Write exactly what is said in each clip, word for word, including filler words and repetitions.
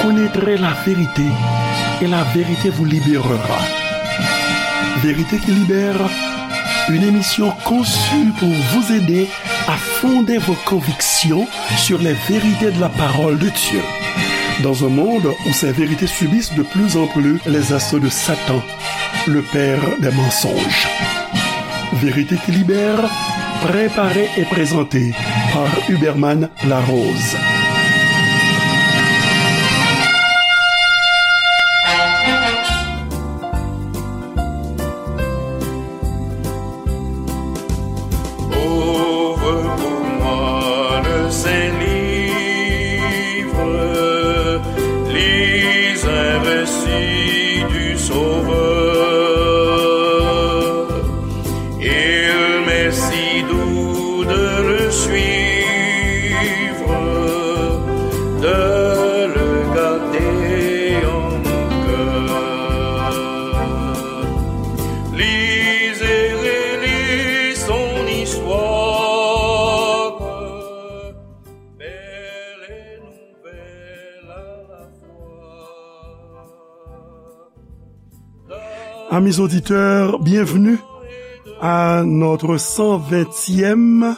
Connaîtrez la vérité, et la vérité vous libérera. Vérité qui libère, une émission conçue pour vous aider à fonder vos convictions sur les vérités de la parole de Dieu. Dans un monde où ces vérités subissent de plus en plus les assauts de Satan, le père des mensonges. Vérité qui libère, préparée et présentée par Huberman Larose. Ouvre pour moi le Saint-Livre, lis un récit du Sauveur. Il m'est si doux de le suivre, de le garder en mon cœur. Lis et relis son histoire, belle et nouvelle à la fois. Amis auditeurs, bienvenue à notre cent vingtième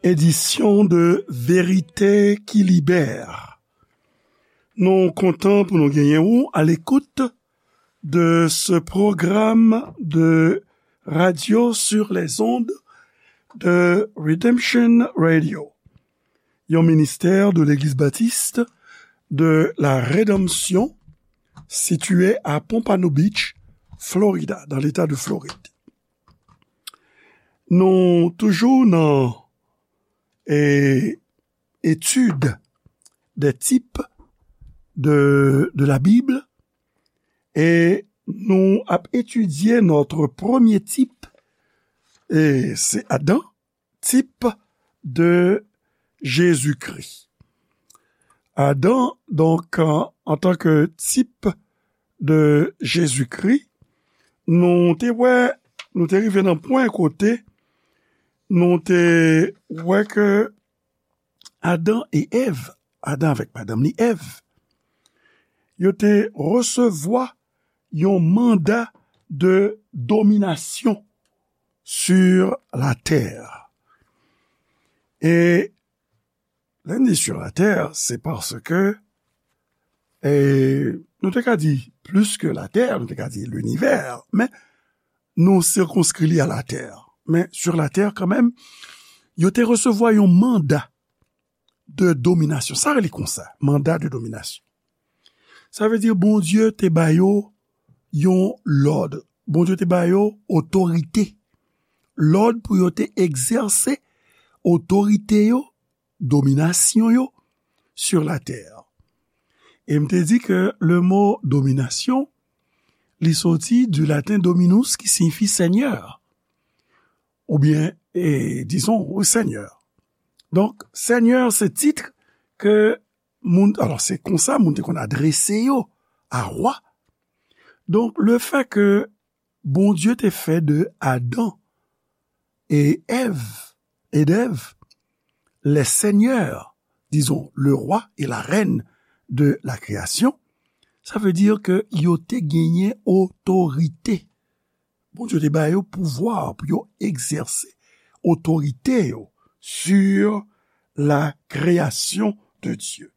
édition de Vérité qui libère. Nou kontan pou nou genyen ou à l'écoute de ce programme de radio sur les ondes de Redemption Radio, yon ministère de l'Église baptiste de la Rédemption situé à Pompano Beach, Florida, dans l'État de Floride. Nou toujou nan, eh, étude des types de, de la Bible, e nou ap etidye notre premier type, e se Adan, type de Jésus-Christ. Adan, donk, an, an tan ke type de Jésus-Christ, nou te wè, nou te rive nan pwen kote nou te wè ke Adan e Èv, Adan avèk madanm li Èv, yo te resevwa yon manda de dominasyon sur la terre. E lè n di sur la terre, se paske, e, nou te ka di plus que la terre, nou te ka di l'univers, men nou sirkonskri li a la terre. Men sur la terre kanmenm, yo te resevwa yon manda de dominasyon. Sa rele konsa, manda de dominasyon. Sa vle di Bondye te ba yo yon lòd. Bondye te ba yo otorite. Lòd pou yo te egzèse otorite yo, dominasyon yo, sur la terre. E m te di ke le mo dominasyon, li soti du latin dominus, ki siyifi seigneur. Oubyen, e, dizon, wi, seigneur. Donk, seigneur, se tit ke moun, alò, se konsa moun te konn adrese yo a wa. Donk, le fait que Bondye te fè de Adan e Èv, et d'Ève, les seigneurs, disons, le roi et la reine de la création, sa vle di ke yo te genyen otorite. Bondye te ba yo pouvwa pou yo egzèse otorite yo sur la création de Dieu.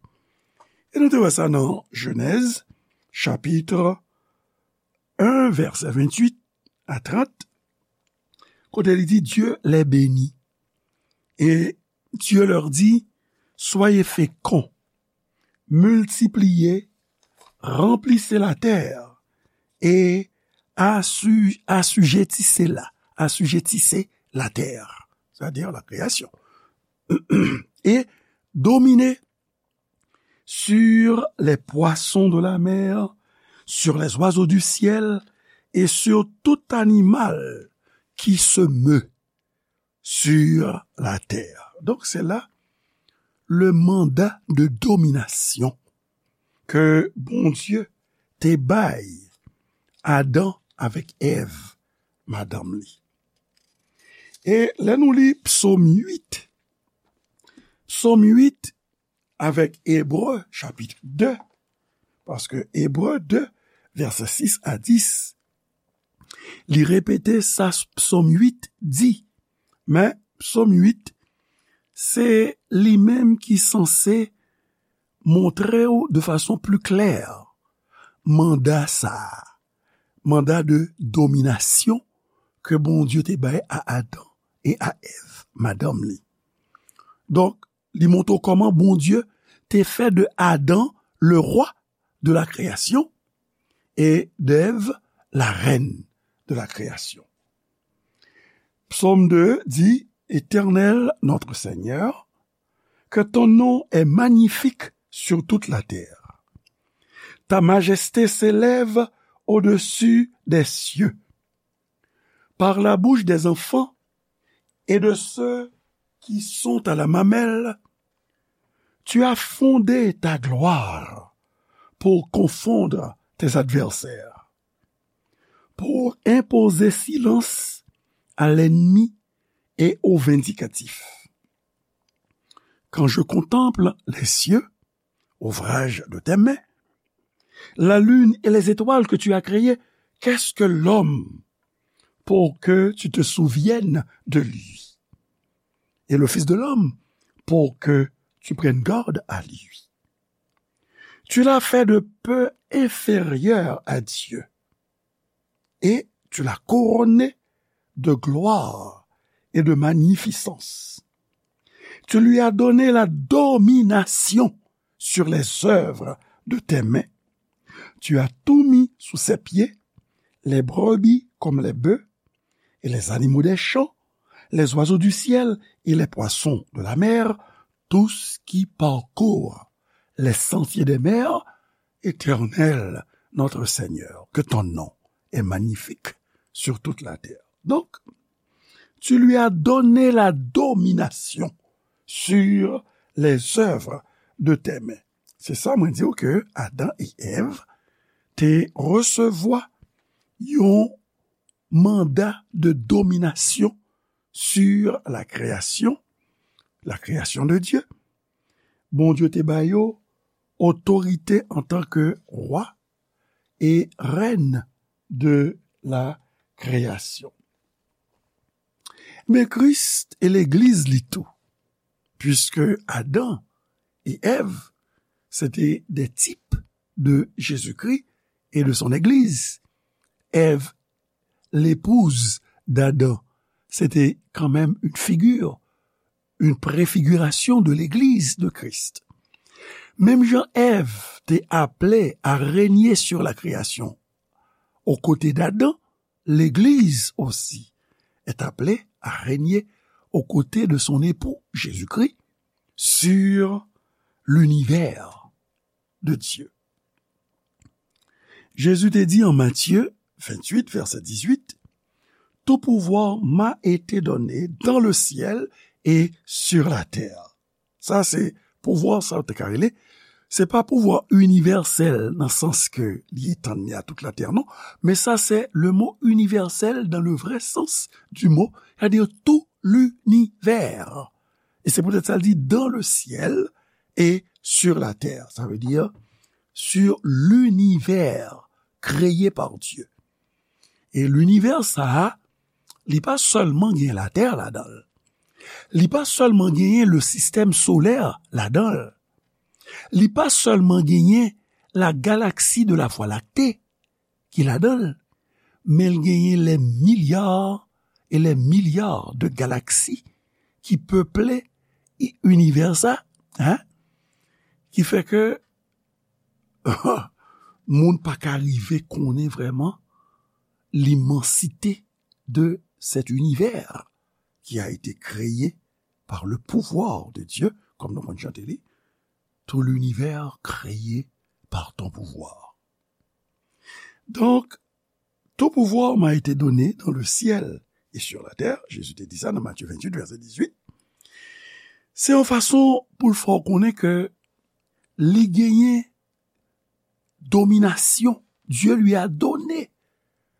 E nou te wè sa nan Jenèz, chapit en, vèsè venntuit a trant, kote li di, Dieu les bénit. Et Dieu leur dit, soyez féconds, multipliez, remplissez la terre et assu-, assujettissez-la, assujettissez la terre, c'est-à-dire la création, et dominez sur les poissons de la mer, sur les oiseaux du ciel et sur tout animal qui se meut sur la terre. Donk, se la le manda de dominasyon ke Bondye te bay Adan avèk Èv, madanm li. E lè nou li Psaume huit, Psaume huit, avèk Ebre chapit de, paske Ebre de, vèsè sis a dis, li repete sa Psòm uit di, men Psòm uit, se li menm ki sanse montre w de fason pli klè manda sa a, manda de dominasyon ke Bondye te bay a Adan e a Èv, madanm li. Donk, li montre w kòman Bondye te fè de Adan le roi de la création et d'Ève la reine de la création. Psaume deux dit, Éternel notre Seigneur, que ton nom est magnifique sur toute la terre. Ta majesté s'élève au-dessus des cieux. Par la bouche des enfants et de ceux qui sont à la mamelle, tu as fondé ta gloire pour confondre tes adversaires, pour imposer silence à l'ennemi et au vindicatif. Quand je contemple les cieux, ouvrage de tes mains, la lune et les étoiles que tu as créées, qu'est-ce que l'homme pour que tu te souviennes de lui? Et le Fils de l'homme pour que tu prennes garde à lui. Tu l'as fait de peu inférieur à Dieu et tu l'as couronné de gloire et de magnificence. Tu lui as donné la domination sur les œuvres de tes mains. Tu as tout mis sous ses pieds, les brebis comme les bœufs, et les animaux des champs, les oiseaux du ciel et les poissons de la mer, tout ce qui parcourt les sentiers des mers, Éternel, notre Seigneur, que ton nom est magnifique sur toute la terre. Donc, tu lui as donné la domination sur les œuvres de tes mains. Se sa mwen di w ke Adan e Èv te resevwa yon manda de dominasyon sur la création, la création de Dieu. Bondye te ba yo otorite antanke wa e rèn de la création. Men Kris e legliz li tou, puisque Adam et Èv, c'était des types de Jésus-Christ et de son Église. Èv, l'épouse d'Adam, c'était quand même une figure, une préfiguration de l'Église de Christ. Menm jan Èv te aple a renye sur la création aux côtés d'Adam, l'Église aussi est appelée à régner aux côtés de son époux, Jésus-Christ, sur l'univers de Dieu. Jezi te di an Matye venntuit, vèsè dizuit, Tout pouvoir m'a été donné dans le ciel et sur la terre. Sa se pouvwa sa yo te ka rele. Se pa pouvwa inivèsèl nan sans ke li etann li a tout latè, non. Men sa se le mot universel dans le vrai sens du mot, c'est-à-dire tout l'univers. Et c'est peut-être ça, il dit dans le ciel et sur la terre. Ça veut dire sur l'univers créé par Dieu. E linivè sa a, li pa sèlman gen latè ladan l. Li pa sèlman genyen le sistèm solè ladan l. Li pa sèlman genyen la galaksi de la Vwa Lakte ki ladan l, men l genyen les milliards et les milliards de galaksi ki peple i-, inivè sa, hein? Ki fè ke moun pa ka rive konnen vrèman l'immensité de cet univers qui a été créé par le pouvoir de Dieu, comme nous venons de chanter, tout l'univers créé par ton pouvoir. Donc, tout pouvoir m'a été donné dans le ciel et sur la terre, Jezi te di sa nan Matye venntuit, vèsè dizuit. Se yon fason pou l fè w konnen ke li genyen dominasyon. Dieu lui a donné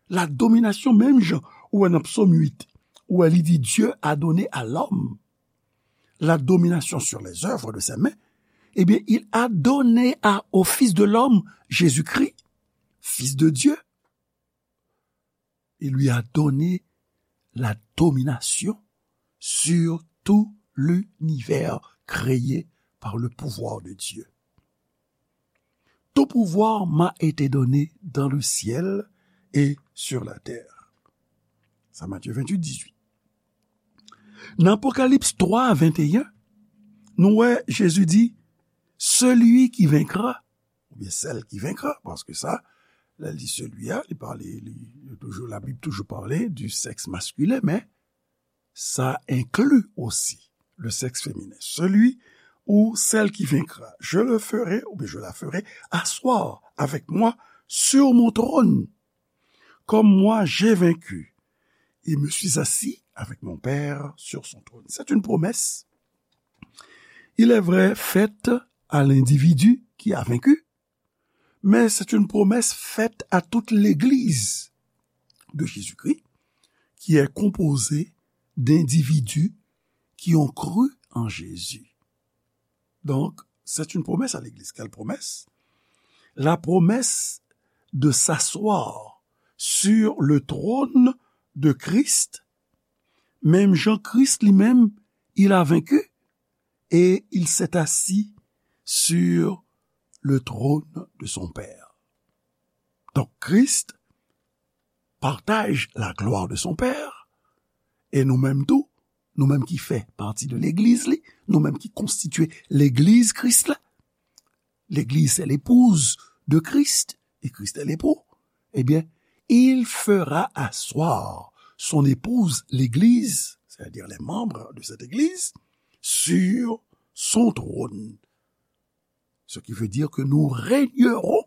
la domination, menm jan ou wè nan Psaume huit, ou wè li di, Dieu a donné à l'homme la domination sur les œuvres de ses mains. Eh bien, il a donné à, au Fils de l'homme, Jésus-Christ, Fils de Dieu, il lui a donné la domination sur tout l'univers créé par le pouvoir de Dieu. Tout pouvoir m'a été donné dans le ciel et sur la terre. Sa Matye venntuit, dizuit. Nan Apokalips twa, venteyen, nou wè Jezi di, celui qui vaincra, oubyen celle qui vaincra, paske sa, lè l di celui a, li pale, li, li toujou, Labib toujou pale du sexe masculin, men ça inclut aussi le sexe féminin. Celui ou celle qui vaincra, je le ferai, ou bien je la ferai, asseoir avec moi sur mon trône, comme moi j'ai vaincu, et me suis assis avec mon Père sur son trône. C'est une promesse, il est vrai, faite à l'individu qui a vaincu, mais c'est une promesse faite à toute l'Église de Jésus-Christ, qui est composée d'individus qui ont cru en Jésus. Donc, c'est une promesse à l'Église. Quelle promesse ? La promesse de s'asseoir sur le trône de Christ, menm jan Kris li menm, il a vaincu et il s'est assis sur le trône de son Père. Donc, Christ partage la gloire de son Père, et nou menm tou, nou menm ki fè pati de legliz li, nou menm ki konstitye legliz Kris la, l'église est l'épouse de Christ, et Christ est l'époux, eh bien, il fera asseoir son épouse, l'église, c'est-à-dire les membres de cette église, sur son trône. Ce qui veut dire que nous régnerons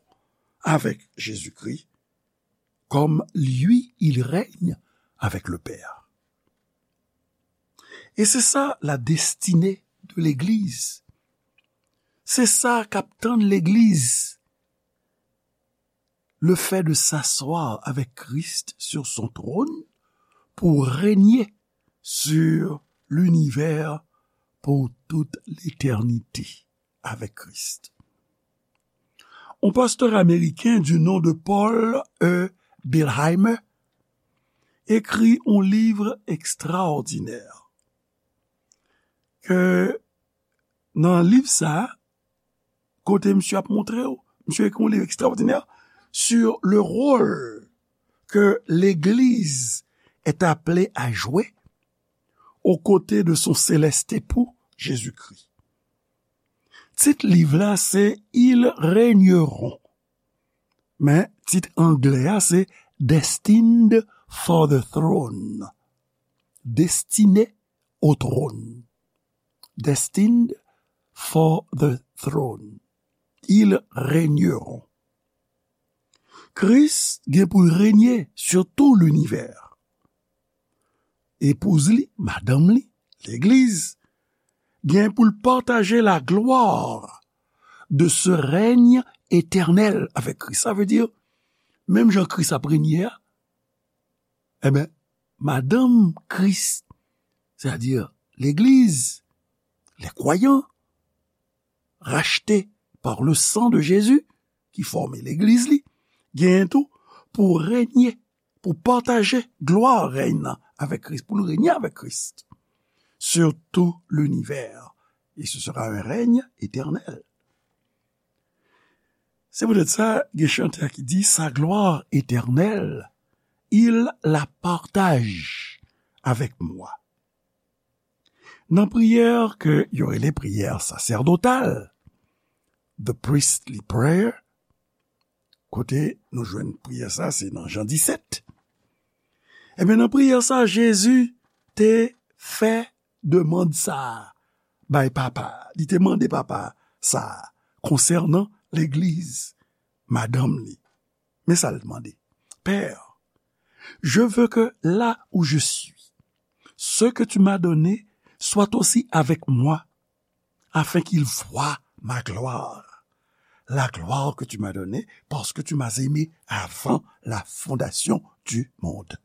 avec Jésus-Christ comme lui, il règne avec le Père. Et c'est ça la destinée de l'Église. Se sa k ap tann legliz. Le fait de s'asseoir avec Christ sur son trône pour régner sur l'univers pour toute l'éternité avec Christ. Un pasteur américain du nom de Paul E. Billheimer écrit un livre extraordinaire ke nan liv sa, kote misye ap montre w, misye ekri yon liv ekstraòdinè sur le rôle que l'Église est appelée à jouer aux côtés de son céleste époux, Jésus-Christ. Tit liv la se Ils régneront. Men tit anglè a se Destined for the Throne. Destiné au trône. Destined for the throne. Ils régneront. Kris gen pou l renye sur tout l'univers. Epouz li, madanm li, legliz, gen pou l pataje la gloire de ce règne éternel avec Christ. Sa vle di, menm jan Kris ap renye a, enben, madanm Kris, c'est-à-dire l'église, les croyants, rachetés par le sang de Jésus, ki fòme legliz li, genyen tou pou renye, pou pataje glwa rèy nan avèk Kris, pou nou renye avèk Kris sur tout l'univers. Et ce sera un règne éternel. Se poutèt sa, gen chantè ki di, sa gloire éternelle, il la partage avec moi. Nan priyè ke yo rele priyè sasèdotal, the priestly prayer, kote nou jwenn priyè sa, se nan Jan disèt. Ebyen, nan priyè sa, Jezi te fè demann sa a bay Papa a. Li te mande Papa sa a konsènan legliz, madanm li. Men sa l mande. Père, je veux que là où je suis, ce que tu m'as donné soit aussi avec moi, afin qu'ils voient ma gloire, la gloire que tu m'as donnée parce que tu m'as aimé avant la fondation du monde.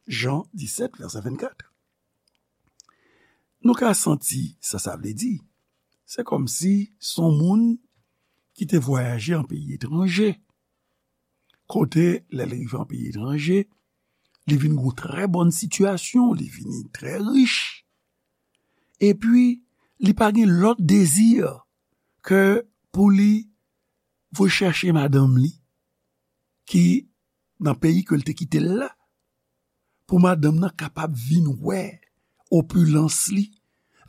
Jean dix-sept, verset vingt-quatre. Nou ka santi sa sa vle di. se kòmsi se yon moun ki te vwayaje an peyi etranje. Kote, lè l rive an peyi etranje, li vin gen yon trè bòn sitiyasyon, li vini trè rich. Epi, li pa gen lòt dezi ke pou li voye chèche madanm li, ki nan peyi ke l te kite l la, pou madanm nan kapab vin wè opilans li,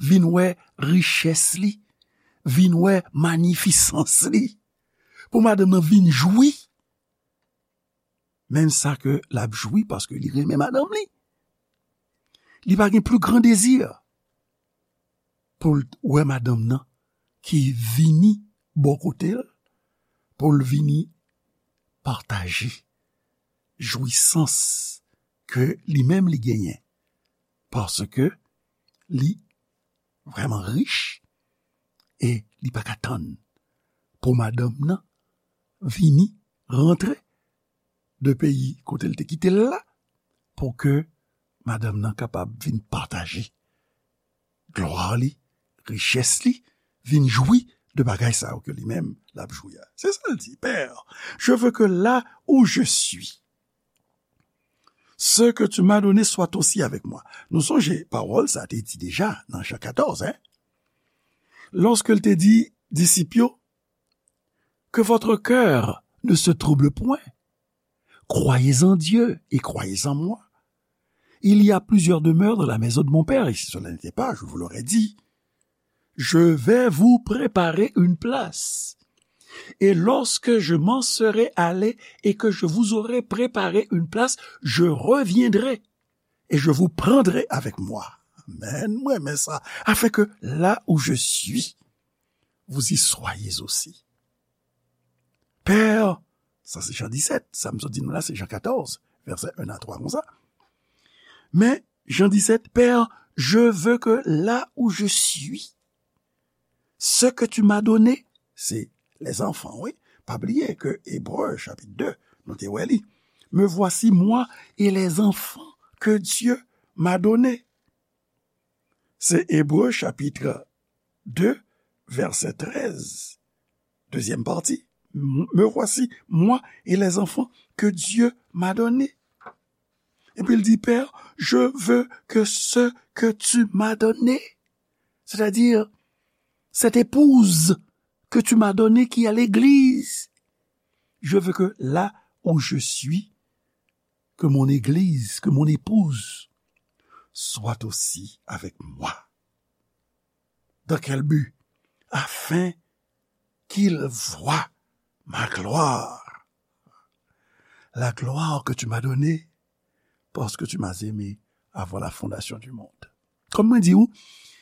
vin wè richès li, vin wè manifisans li, pou madanm nan vin jwi menm sa ke l ap jwi paske li renmen madanm li. Li pa gen pli gran dezi pou l wè madanm nan ki vini bò kote l, pou l vini pataje jwisans ke li menm li genyen, paske li vrèman rich e li pa ka tann pou madanm nan vini rantre de peyi kote l te kite l la, pou ke madanm nan kapab vin pataje glwa li, richès li, vin jwi de bagay sa yo ke li menm l ap jwi a. Se sa l di, Père, je veux que là où je suis, ce que tu m'as donné soit aussi avec moi. Nou sonje pawòl sa te di deja nan Jan katòz, hein? Lòske l te di disip yo, que votre cœur ne se trouble point. Croyez en Dieu et croyez en moi. Il y a plusieurs demeures dans la maison de mon Père, et si cela n'était pas, je vous l'aurais dit. Je vais vous préparer une place. Et lorsque je m'en serai allé et que je vous aurai préparé une place, je reviendrai et je vous prendrai avec moi. Amen. Mwen renmen sa. Afin que là où je suis, vous y soyez aussi. Père, sa se Jan disèt, sa m sot di nou la se Jan katòz, vèsè en a twa konsa. Men, Jan disèt, Père, je veux que là où je suis, ce que tu m'as donné, se les enfants, wi. Pa bliye ke Ebre chapit de, nou te wè li. Me voici moi et les enfants que Dieu m'a donnés. Se Ebre chapit de, vèsè trèz, dezyèm pati. Me voici, moi et les enfants que Dieu m'a donnés. Epi l di, Père, je veux que ce que tu m'as donné, c'est-à-dire cette épouse que tu m'as donnée qui est l'église, je veux que là où je suis, que mon église, que mon épouse soit aussi avec moi. Dans quel but? Afin qu'il voie ma gloire. La gloire que tu m'as donnée parce que tu m'as aimé avant la fondation du monde. Comme mwen di ou,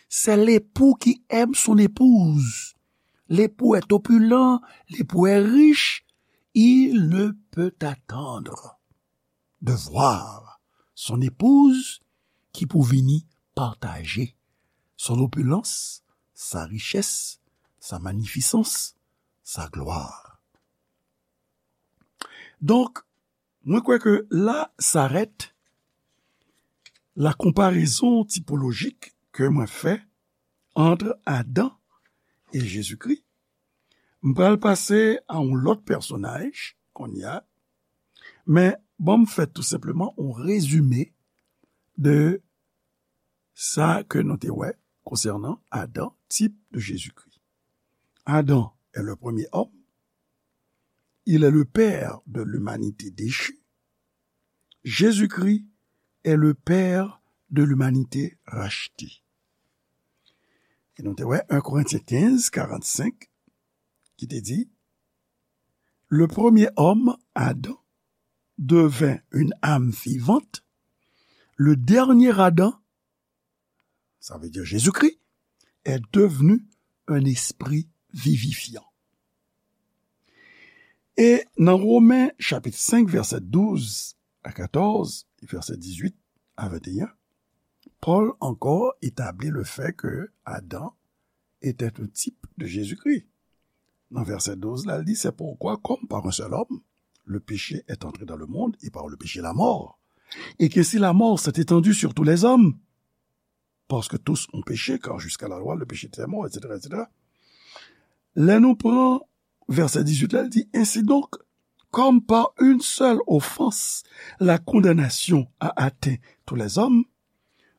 c'est l'époux qui aime son épouse. L'époux est opulent, l'époux est riche, il ne peut attendre de voir son épouse ki pou vini pataje son opulans, sa richès, sa manifisans, sa glwa. Donk, mwen kwè ke la s'arrête la comparaison typologique ke mwen fè entre Adam et Jésus-Christ. M pral pase a yon lòt pèsonaj kounye a, men ban m fè tou senpleman yon rezime de sa ke nou te wè konsènan Adam, type de Jésus-Christ. Adam est le premier homme, il est le père de l'humanité déchue. Jésus-Christ est le père de l'humanité rachetée. E nou te wè en Korentyen kenz, karannsenk, ki te di, le premier homme, Adam, devint une âme vivante, le dernier Adam, ça veut dire Jésus-Christ, est devenu un esprit vivifiant. E nan Women chapit senk, vèsè douz a katòz, e vèsè dizuit a venteyen, Pòl ankò etabli le fait que Adam était un type de Jésus-Christ. Nan vèsè douz la, li di, c'est pourquoi, comme par un seul homme, le péché est entré dans le monde, et par le péché, la mort. Et que si la mort s'est étendue sur tous les hommes, parce que tous ont péché, car jusqu'à la loi, le péché était mort, et cetera, et cetera. Lè nou pran vèsè dizuit la, l di, Ainsi donc, comme par une seule offense, la condamnation a atteint tous les hommes,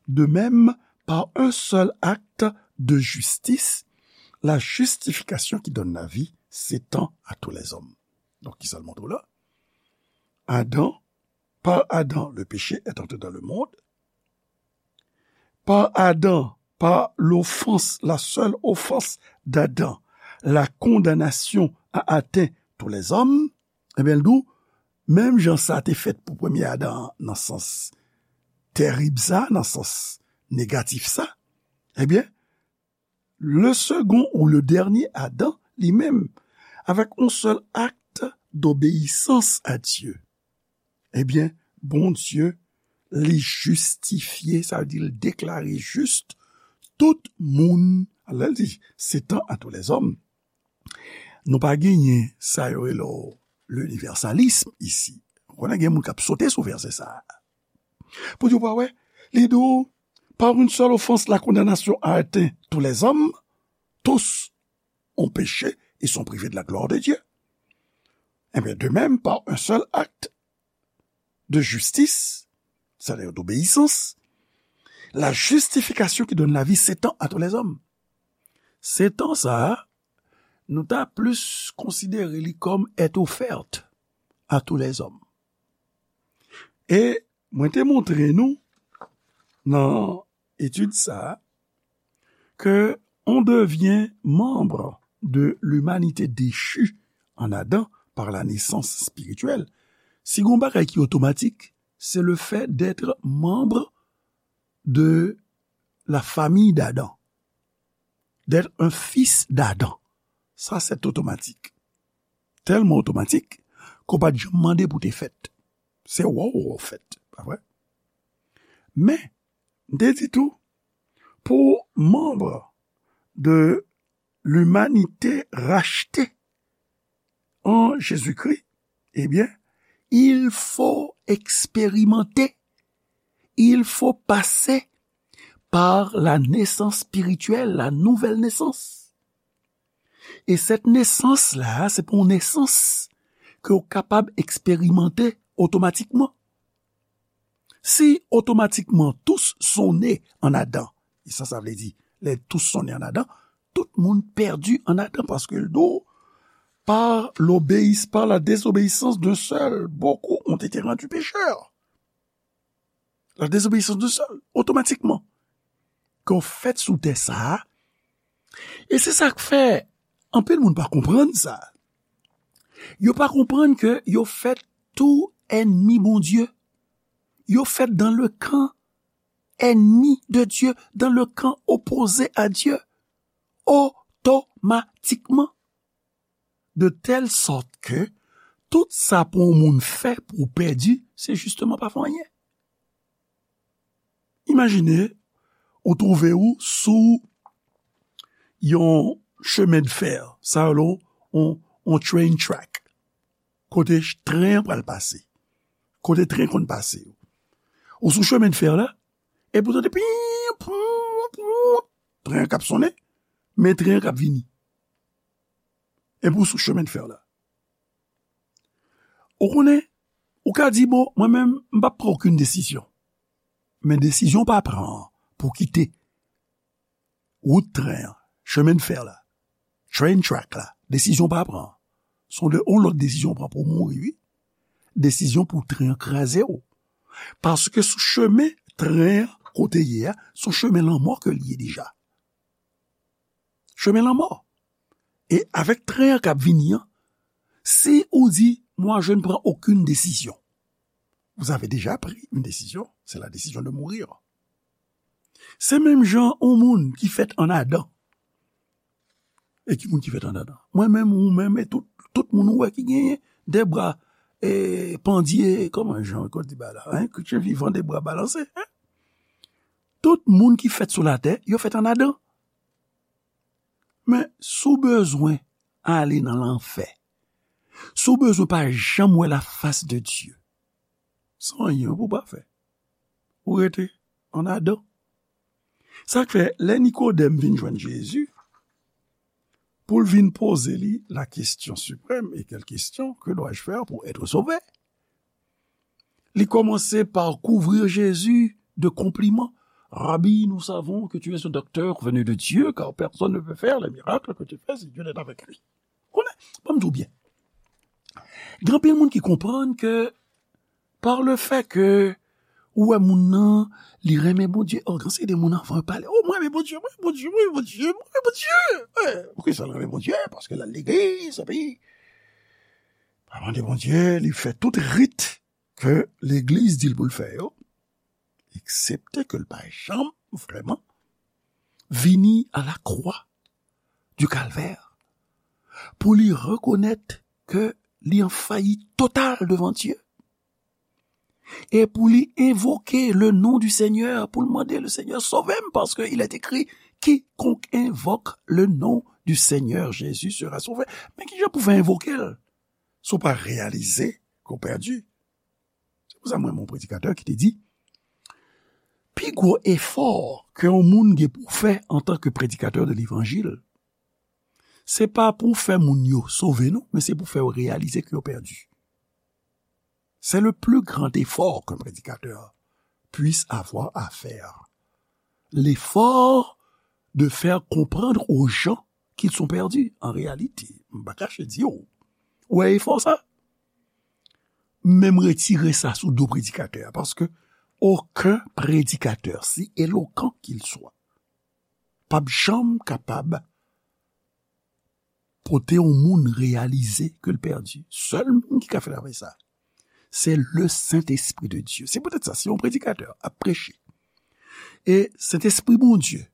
de même, par un seul acte de justice, la justification qui donne la vie s'étend à tous les hommes. Donk, ki sa l montre w la? Adam, par Adam, le péché est entré dans le monde. Par Adam, par l'offense, la seule offense d'Adam, la condamnation a atteint tous les hommes. Ebyen, l di w, menm jan sa te fèt pou premye Adan an, nan sans terib sa, nan sans negatif sa, ebyen, le second ou le dernier Adam, li menm, avec un seul acte d'obéissance à Dieu, ebyen, Bondye, li jistifye, sa vle di, li deklare jis tout moun, lè l di, s'étend à tous les hommes. Nou pa genyen sa yo rele l'universalisme isi. Ou konnen gen moun k ap sote sou vèsè sa a. Pou di w pa wè, li di w, par une seule offense, la condamnation a atteint tous les hommes, tous ont péché et sont privés de la gloire de Dieu. Eh bien, de même, par un seul acte de justice, c'est-à-dire d'obéissance, la justification qui donne la vie s'étend à tous les hommes. S'étend sa a, nou ta plis konsidere li kòm est offerte à tous les hommes. E mwen te montre nou nan etid sa a ke on devient membre de l'humanité déchue en Adam par la naissance spirituelle. Si gon bagay ki otomatik, c'est le fait d'être membre de la famille d'Adam, d'être un fils d'Adam. Sa, c'est automatique. Tèlman otomatik ke w pa t janm mande pou te fèt. Se wè w fèt, pa vre? Men, m te di tou, pou manm de l'humanité rachetée en Jésus-Christ, eh bien, il faut expérimenter, il faut passer par la naissance spirituelle, la nouvelle naissance. E cette naissance-là, se pa yon nesans ke w kapab eksperimante otomatikman. Si automatiquement tous sont nés en Adam, e sa, sa vle di, les tous sont nés en Adam, tout moun pèdi an Adan, paske l di w, par l'obéis-, par la désobéissance d'un seul, beaucoup ont été rendus pécheurs. La désobéissance d'un seul, otomatikman. Ke w fèt sou tè sa a. E se sa k fè anpil moun pa konprann sa. Yo pa konprann ke yo fèt tou ènmi Bondye. Yo fèt dans le camp ennemi de Dieu, dans le camp opposé à Dieu, otomatikman. De telle sorte que tout sa pou yon moun fè pou w pèdi, se jisteman pa fè anyen. Imajine ou twouve w sou yon chemen de fer, sa yo rele yon, yon train track, kote ch-, tren an pral pase, kote tren konn pase yo. Ou sou chemen de fer la, epi w tande pim, poum, poum, tren an k ap sonnen, men tren an k ap vini. Epi w sou chemen de fer la. Ou konnen, ou ka di, bon, mwen menm, m p ap pran okenn desizyon. Men desizyon w pa pran an pou w kite wout tren an, chemen de fer la, train track la, desizyon w pa pran an. Se yon de, yon lòt desizyon w pran pou w mouri, wi. Desizyon pou tren an kraze w. Paske sou chemen tren an, kote l ye a, se yon chemen lanmò ke l ye deja. Chemen lanmò. E avèk tren an k ap vini an, si ou di, moi, je ne prends aucune décision, vous avez déjà pris une décision, c'est la décision de mourir. Se menm jan yon moun ki fèt an Adan. E ki moun ki fèt an Adan? Mwen menm, ou menm, e tout, tout moun ou wè ki genyen de bra, e, pandye, kòman jan yo di ba la, hein? Chrétien vivant, de bras balancés, hein? Tout moun ki fèt sou latè, yo fèt an Adan. Men, si w bezwen ale nan lanfè, si w bezwen pa janm wè lafas de Dye, se anyen pou w pa fè. Ou rete an Adan. Sa k fè, lè Nikodèm vin jwenn Jezi, pou l vin poze li la question suprême, et quelle question, que dois-je faire pour être sauvé? Li kòmanse pa kouvri Jezi de konpliman. Rabbi, nous savons que tu es un docteur venu de Dieu, car personne ne peut faire les miracles que tu fais si Dieu n'est avec lui. Konnen, ban m di w byen. Gen anpil moun ki konprann ke par le fait que ou wè moun nan, li renmen Bondye. Oh, gen seri de moun anvan yo pale, oh, mwen renmen Bondye, mwen renmen Bondye, mwen renmen Bondye, mwen renmen Bondye. Eh, poukisa l renmen Bondye? Paske l al legliz, epi pa mande Bondye, li fè tout rit ke legliz di l pou l fè yo, eksepte ke l pa janm vrèman vini a la kwa di Kalvè pou li rekonèt ke li an fayit total devan Dye. E pou li envoke le non du Senyè, pou l mande le Senyè sove m, paske il est écrit, quiconque invoque le nom du Seigneur Jésus sera sauvé. Men kijan pou fè envoke l? Si w pa reyalize ke w pèdi. Se pou sa mwen, yon predikatè ki te di, pi gwo efò ke yon moun gen pou fè antanke predikatè de levanjil, se pa pou fè moun yo sove, non, men se pou fè yo reyalize ke yo pèdi. C'est le plus grand effort qu'un prédicateur puisse avoir à faire. L'effort de faire comprendre aux gens qu'ils sont perdus. En réalité, m pa kache di w, ou wè efò sa? Men m retire sa sou do predikatè a, paske okenn predikatè, si elokan qu'il soit, p ap janm kapab pote yon moun reyalize ke l pèdi. Sèl moun ki ka fè travay sa, se le Saint-Esprit de Dieu. Se poutèt sa, si yon predikatè ap preche, e Sentespri Bondye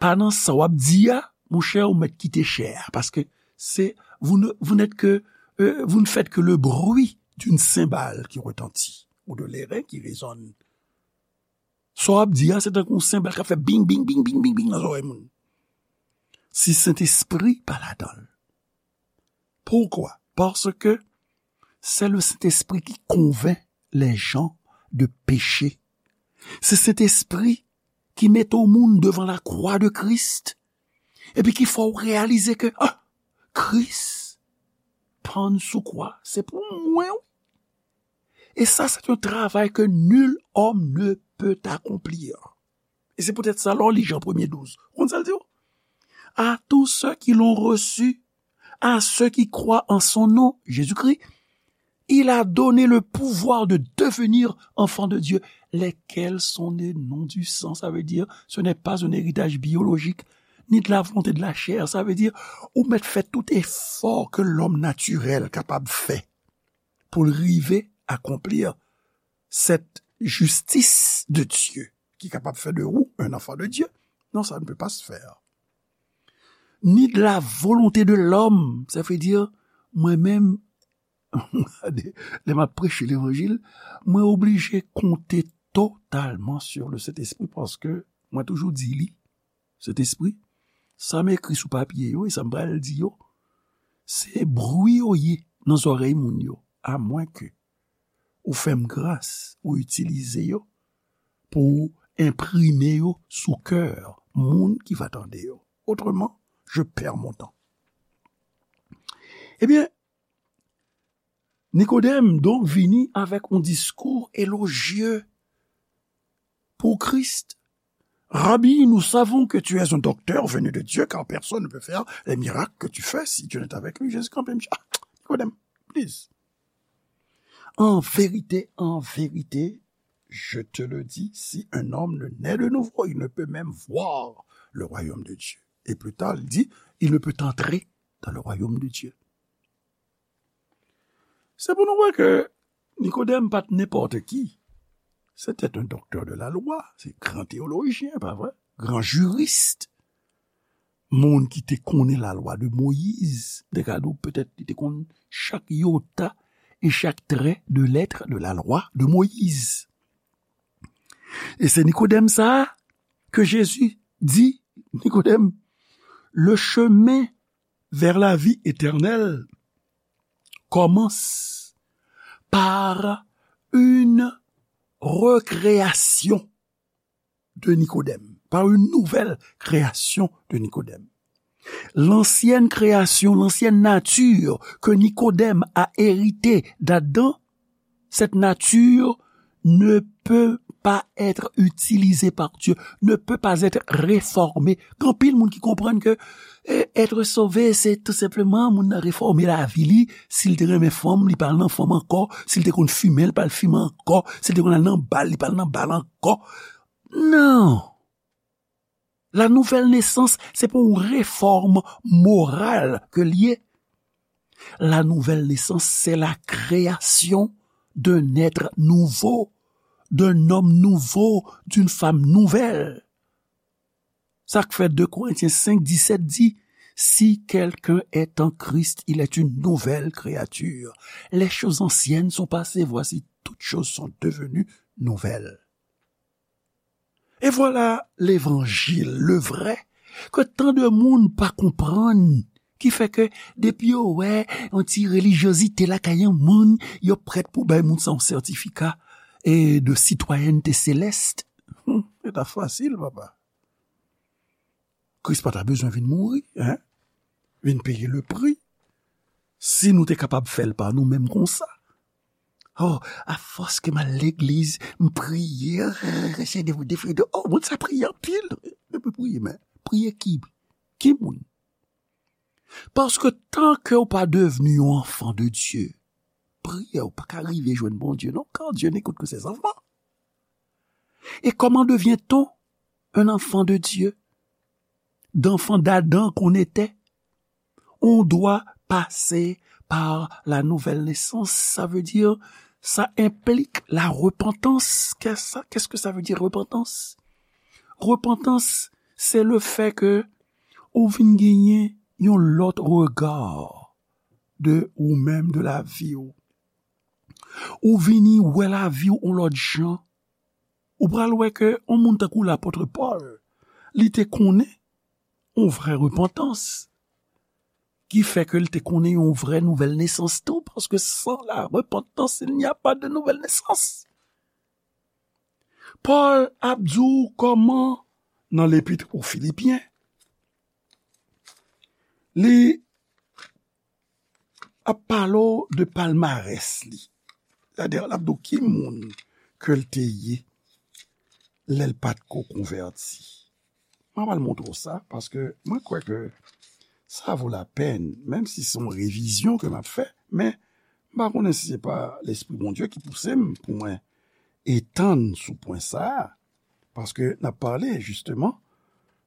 pa nan sa w ap di a, monchè, ou mèt kite chè a, paske se, vous ne, vous n'êtes que, euh, vous ne faites que le bruit d'une cymbale qui retentit, ou de l'airain qui résonne. Sa w ap di a, se tankou yon senbal k ap fè bing, bing, bing, bing, bing, bing nan zòrèy moun. Si Sentespri pa ladan l. Pourquoi? Parce que c'est le Saint-Esprit qui convainc les gens de péché. Se Sentespri ki mete yon moun devan lakwa de Kris, epi ki fè w reyalize ke, ah, Kris pann sou kwa, se pou mwen, wi. Et ça, c'est un travail que nul homme ne peut accomplir. E se poutèt sa, lè w li Jan premye douz, ou konn sa l di w? À tous ceux qui l'ont reçu, à ceux qui croient en son nom, Jésus-Christ, il a donné le pouvoir de devenir enfants de Dieu, lesquels sont nés non du sang. Ça veut dire, ce n'est pas un héritage biologique, ni de la volonté de la chair. Ça veut dire, ou mèt fè tout efò ke lòm natirèl kapab fè pou l rive akonpli cette justice de Dieu ki kapab fè de ou un enfant de Dieu. Non, ça ne peut pas se faire. Ni de la volonté de l'homme, ça veut dire, mwen menm, lè m ap preche levanjil, mwen oblije konte totalman sur le Saint-Esprit, paske mwen toujou di li, Sentespri, sa m ekri sou papye yo e sa m pral di yo, se bri yo ye nan zòrèy moun yo, amwenke ou fè m gras, ou itilize yo pou w enprime yo sou kè moun ki va tande yo. Autrement, je perds mon temps. Ebyen, Nikodèm donk vini avèk yon diskou elojye pou Kris. Rabbi, nous savons que tu es un docteur venu de Dieu, car personne ne peut faire les miracles que tu fais si Dieu n'est avec lui. Jezi kanpe, m di, ah, Nikodèm, please. En vérité, en vérité, je te le dis, si un homme ne naît de nouveau, il ne peut même voir le royaume de Dieu. Et plus tard, il dit, il ne peut entrer dans le royaume de Dieu. Se pou nou wè ke Nikodèm pa t nenpòt ki. C'était un docteur de la loi, se gran teyolojyen, pa vre? Gran jiris. Moun ki te konnen lalwa de Moyiz. Te ka di w petèt li te konn chak yota e chak trè de lèt de la loi de Moïse. E se Nikodèm sa a ke Jezi di, Nikodèm, le chemin vers la vie éternelle commence par une recréation de Nikodèm, par une nouvelle création de Nikodèm. L'ancienne création, l'ancienne nature que Nicodème a hérité d'Adam, cette nature ne peut pas être utilisée par Dieu, ne peut pas être réformée. Gen anpil moun ki konprann ke eh, être sauvé, se tou senpleman moun nan refòme lavi li. Si l te renmen fanm, li pa al nan fanm ankò. Si l te konn fimen, li pa al fimen ankò. Si l te konn al nan bal, li pa al nan bal ankò. Non. La nouvelle naissance, se pa yon refòm moral ke l ye. La nouvelle naissance, c'est la création d'un être nouveau, d'un homme nouveau, d'une femme nouvelle. Sa k fè deux Corinthiens cinq dix-sept di, si quelqu'un est en Christ, il est une nouvelle créature. Les choses anciennes sont passées, voici, toutes choses sont devenues nouvelles. Et voilà l'évangile, le vrai, ke tan de moun pa konprann, ki fè ke depi yo wè yon ti relijyozite lakay yon moun, yo prèt pou bay moun sa yon sètifika e de sitwayènte selès. Hmm, se ta fasil, papa. Kris pa ta bezwen vin mouri, hein? Vin peye le pri. Si nou te kapab fè l pa nou menm konsa. Oh, afòs ke m al legliz, m priye, oh, moun sa priye anpil. Epi priye, men priye ki? Ki moun? Paske tan ke w pa devni yon enfant de Dieu, priyè w pa ka rive jwenn Bondye, non, car Dieu n'écoute que ses enfants. Et comment devient-on un enfant de Dieu? D'enfant d'Adam qu'on était, on doit passer par la nouvelle naissance. Ça veut dire, ça implique la repentance. Qu'est-ce que ça, qu'est-ce que ça veut dire, repentance? Repentance, c'est le fait que ou vin genyen yon lòt rega de ou menm, de lavi w. Ou vini wè lavi w yon lòt jan. Ou pral wè ke yon moun tankou lapòt Pòl, li te konnen yon vrè repantans, ki fè ke li te konnen yon vrè nouvèl nesans tou, paske sans la repentance, il n'y a pas de nouvelle naissance. Pòl ap di w kòman, nan lepit o Filipyen, li ap pale w de palmarès li. Sètadi, l ap di w ki moun ke l te ye lè l pa t ko konvèti. Mwen pral montre w sa, paske mwen kwè ke sa vo lapèn, menm si se yon revizyon ke m ap fè, men m pa konnen si se pa Lespri Bondye ki pouse m pou mwen etann sou pwen sa a, paske n ap pale, jisteman,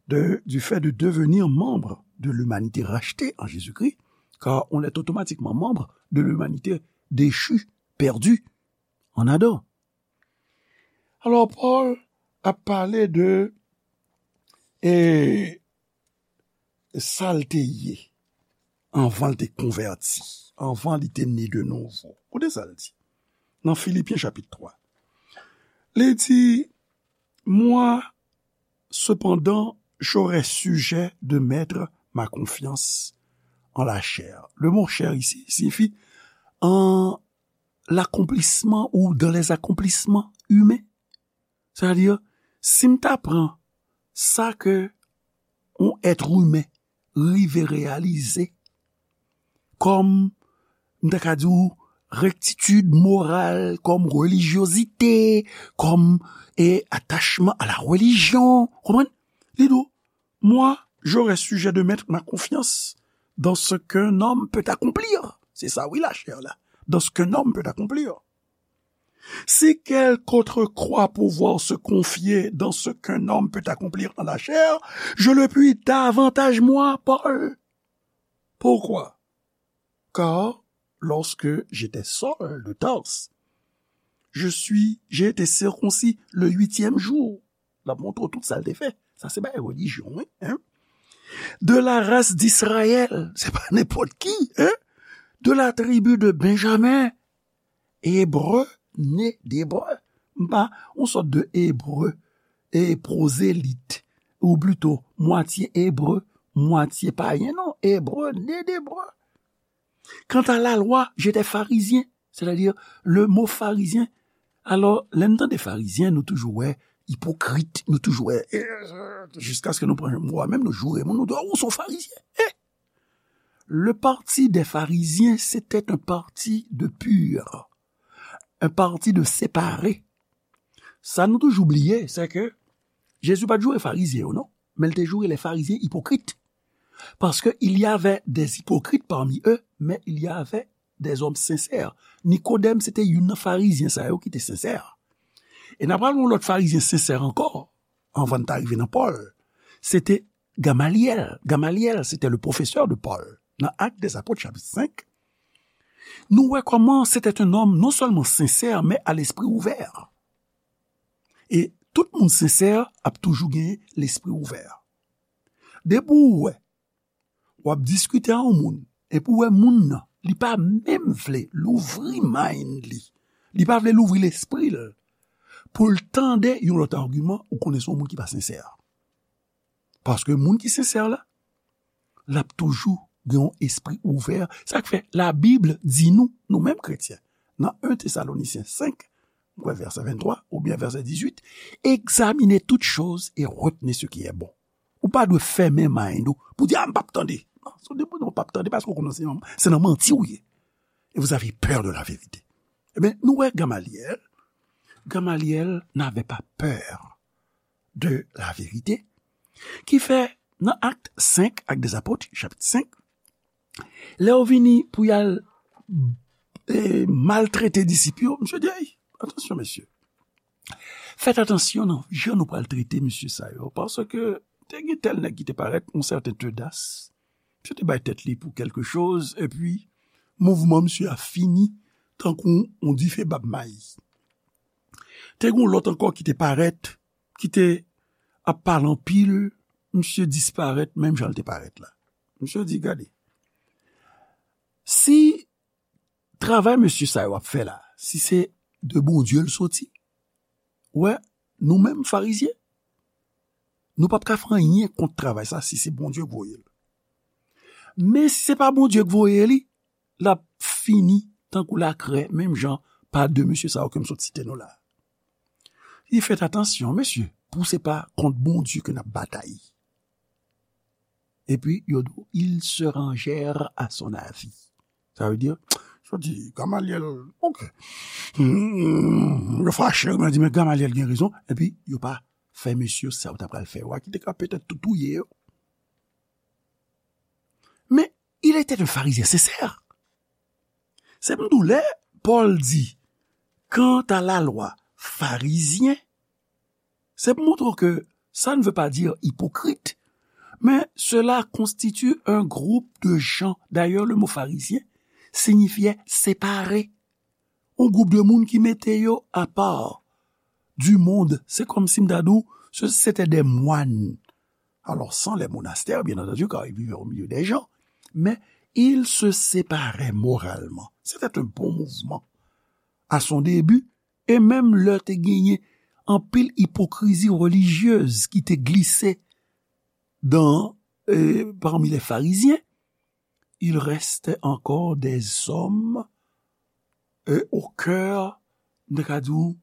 de, du fait de devenir membre de l'humanité rachetée en Jésus-Christ, car on est automatiquement membre de l'humanité déchue, perdue en Adam. Alò, Pòl ap pale de, e, sa l te ye anvan l te konvèti, anvan li te ne de nouvo. Koute sa l di nan Filipyen chapit twa. Li di, moi, cependant, j'aurais sujet de mettre ma confiance en la chair. Le mot chair ici signifie en l'accomplissement ou dans les accomplissements humains. Sètadi, si m ta pran sa ke yon èt imen rive reyalize kòm, m ta ka di w, rektitid moral, kòm relijyozite, kòm, e, atachman a la relijyon, konprann? Li di w, moi, j'aurais sujet de mettre ma confiance dans ce qu'un homme peut accomplir. Se sa, wi, lachè la. Dans ce qu'un homme peut accomplir. Si quelque autre croit pouvoir se confier dans ce qu'un homme peut accomplir en la chair, je le puis davantage moi, Paul. Pourquoi? Car lorsque j'étais Saul de Tarse, je suis, j'ai été circoncis le huitième jour. L ap montre w tout sa l te fè. Sa se bagay relijyon, wi, hein? De la race d'Israël, se pa nenpòt ki, hein? De la tribu de Benjamin, Ebre, né d'Ebre. M pa yon sòt de Ebre, e pwozelit, ou plito mwatye Ebre, mwatye payen, non, Ebre, né d'Ebre. Quant à la loi, j'étais pharisien, c'est-à-dire le mot pharisien. Alò, lè n tande farizyen, nou toujou wè ipokrit, nou toujou wè, e, e, jiskaske nou pran mo a menm, nou joure moun, nou di, "Oh, ou se yon farizyen." E, le parti des pharisiens, c'était un parti de pur, un parti de séparé. Sa nou toujou bliye, se ke Jezi pa t joure farizyen yo, non, men l te joure les pharisiens hypocrites. Parce que il y avait des hypocrites parmi eux, mais il y avait des hommes sincères. Nikodèm, se te youn nan farizyen sa yo ki te sensè. E n ap pale yon lòt farizyen sensè ankò, anvan n ta rive nan Pòl. Se te Gamalyèl. Gamalyèl, se te le professeur de Paul. Nan Actes des Apôtres, chapitre cinq, nou wè kòman se te un homme non seulement sincère, mais à l'esprit ouvert. E tout moun sensè ap toujou gen lespri ouvè. Depi w wè, w ap diskite a yon moun, epi w wè moun nan, li pa menm vle louvri mind li, li pa vle louvri lespri l, pou l tande yon lòt agiman, ou konnen se yon moun ki pa sensè. Paske moun ki sensè la, l ap toujou gen yon espri ouvè. Sa k fè Labib di nou, nou menm kretyen, nan un Tesalonisyen senk, m kwè vèsè venntwa oubyen vèsè dizuit, examinez toutes choses et retenez ce qui est bon. Ou pa dwe fèmen mind ou pou di, "Ah, m p ap tande." Non, se depi w p ap tande, paske w konnen se nan, se nan manti w ye. Et vous avez peur de la vérité. Ebyen, nou wè Gamalyèl. Gamalyèl n'avait pas peur de la vérité. Ki fè, nan Actes cinq, Actes des Apôtres, chapitre cinq, lè yo vini pou y al, e, maltrete disip yo, misye di, "Ey, atansyon, mesye. Fèt atansyon nan jan nou pral trete mesye sa yo, paske te gen tèl nèg ki te parèt, yon sèten Teudas. Misye te bay tèt li pou kèlke choz, epi mouvman misye a fini tankou yon dife bab mayi. Te gen yon lòt ankò ki te parèt, ki te ap pale anpil, misye disparèt menm jan l te parèt la." Misye di, "Gade, si travay mesye sa yo ap fè la, si se de Bondye l soti, wè, nou menm farizyen, nou p ap ka fè anyen kont travay sa si se Bondye k voye l. Men si se pa Bondye k voye li, l ap fini tankou lakrè, menm jan pa de mesye sa yo ke m sot site nou la." Li fèt atansyon, mesye, pou se pa kont Bondye ke n ap batay. Epi, yo di, "Ils se rangèrent à son avis." Sa vle di, yo di, "Gamalyèl, ok." Hmm, yo fache, yo di, "Men Gamalyèl gen rezon." Epi, yo pa fè mesye sa yo ta pral fè yo a, ki te ka petèt tou touye yo. Men, il était un pharisien sincère. Se pou m di w, lè Pòl di, "Quant à la loi pharisienne", se pou montre w ke ça ne veut pas dire hypocrite, mais cela constitue un groupe de gens. D'ailleurs, le mot pharisien signifiait séparé. Yon gwoup de moun ki mete yo apa du monde. Se kòmsi m ta di w, se, se te de mwan. Alors, sans les monastères, bien entendu, car ils vivaient au milieu des gens, mais ils se séparaient moralement. C'était un bon mouvement. À son début, e menm lè te genyen anpil ipokrizi relijyez ki te glise dans, euh, parmi les pharisiens, il restait encore des hommes, euh, au cœur, m ta ka di w,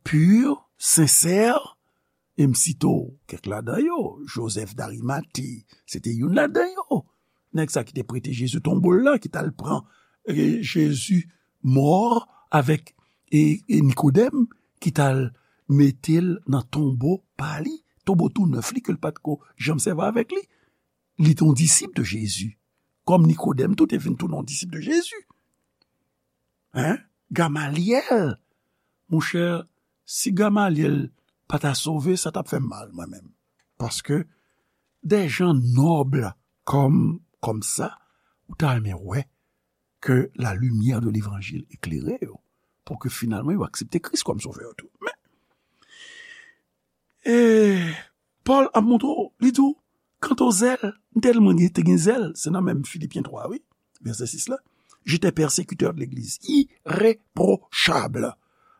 pur, sincère, e m site w kèk ladan yo, Joseph d'Arimathie, se te youn ladan yo. Nèg sa ki te prete Jezi tonbo l la, ki t al pran, e, Jezi mò avèk, e, e Nikodèm, ki t al mete l nan tonbo pa li, tonbo tou nèf li ke l pa t ko janm sèvi avèk li. Li te yon disip de Jezi. Kòm Nikodèm tou te vin tounen yon disip de Jezi. Hein? Gamalyèl. Monchè, si Gamalyèl pa ta sove, sa t ap fè m mal, mwen menm. Paske, de jan nòb kòm, kòm sa, ou ta renmen wè ke la limyè de levanjil eklere yo, pou ke finalman yo aksepte Kris kòm sovè yo tou. Men, e, Pòl ap montre w, li di w, "Quant au zèle", m tèlman gen, te gen zèl, se nan menm Filipyen twa, wi, vèsè sis la, "J'étais persécuteur de l'Église, irréprochable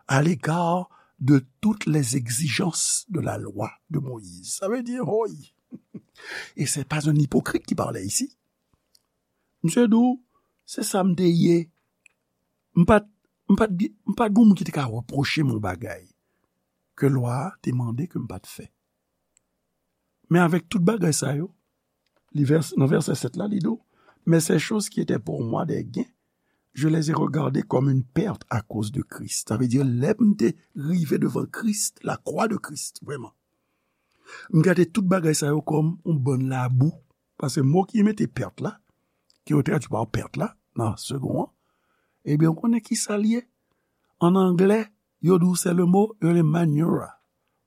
à l'égard de toutes les exigences de la loi de Moïse." Sa vle di, hoy. Et c'est pas un hypocrite qui parlait ici. Misye di w, se sa m te ye. M pa t, m pa t, m pa t gen moun ki te ka repwoche m yon bagay. ke lwa a te mande ke m pa t fè. Men avèk tout bagay sa yo, li vès, nan vèsè sèt la, li di w, mais ces choses qui étaient pour moi des gains, je les ai regardées comme une perte à cause de Christ. Sa vle di, lè m te rive devan Kris, lakwa de Kris, vrèman, m gade tout bagay sa yo kòm yon bann labou. Paske mo ki mete pèt la, ki yo tradui pa pèt la, nan segon an, ebyen, ou konnen ki sa l ye? An anglè, yo di w se le mo, yo rele manure.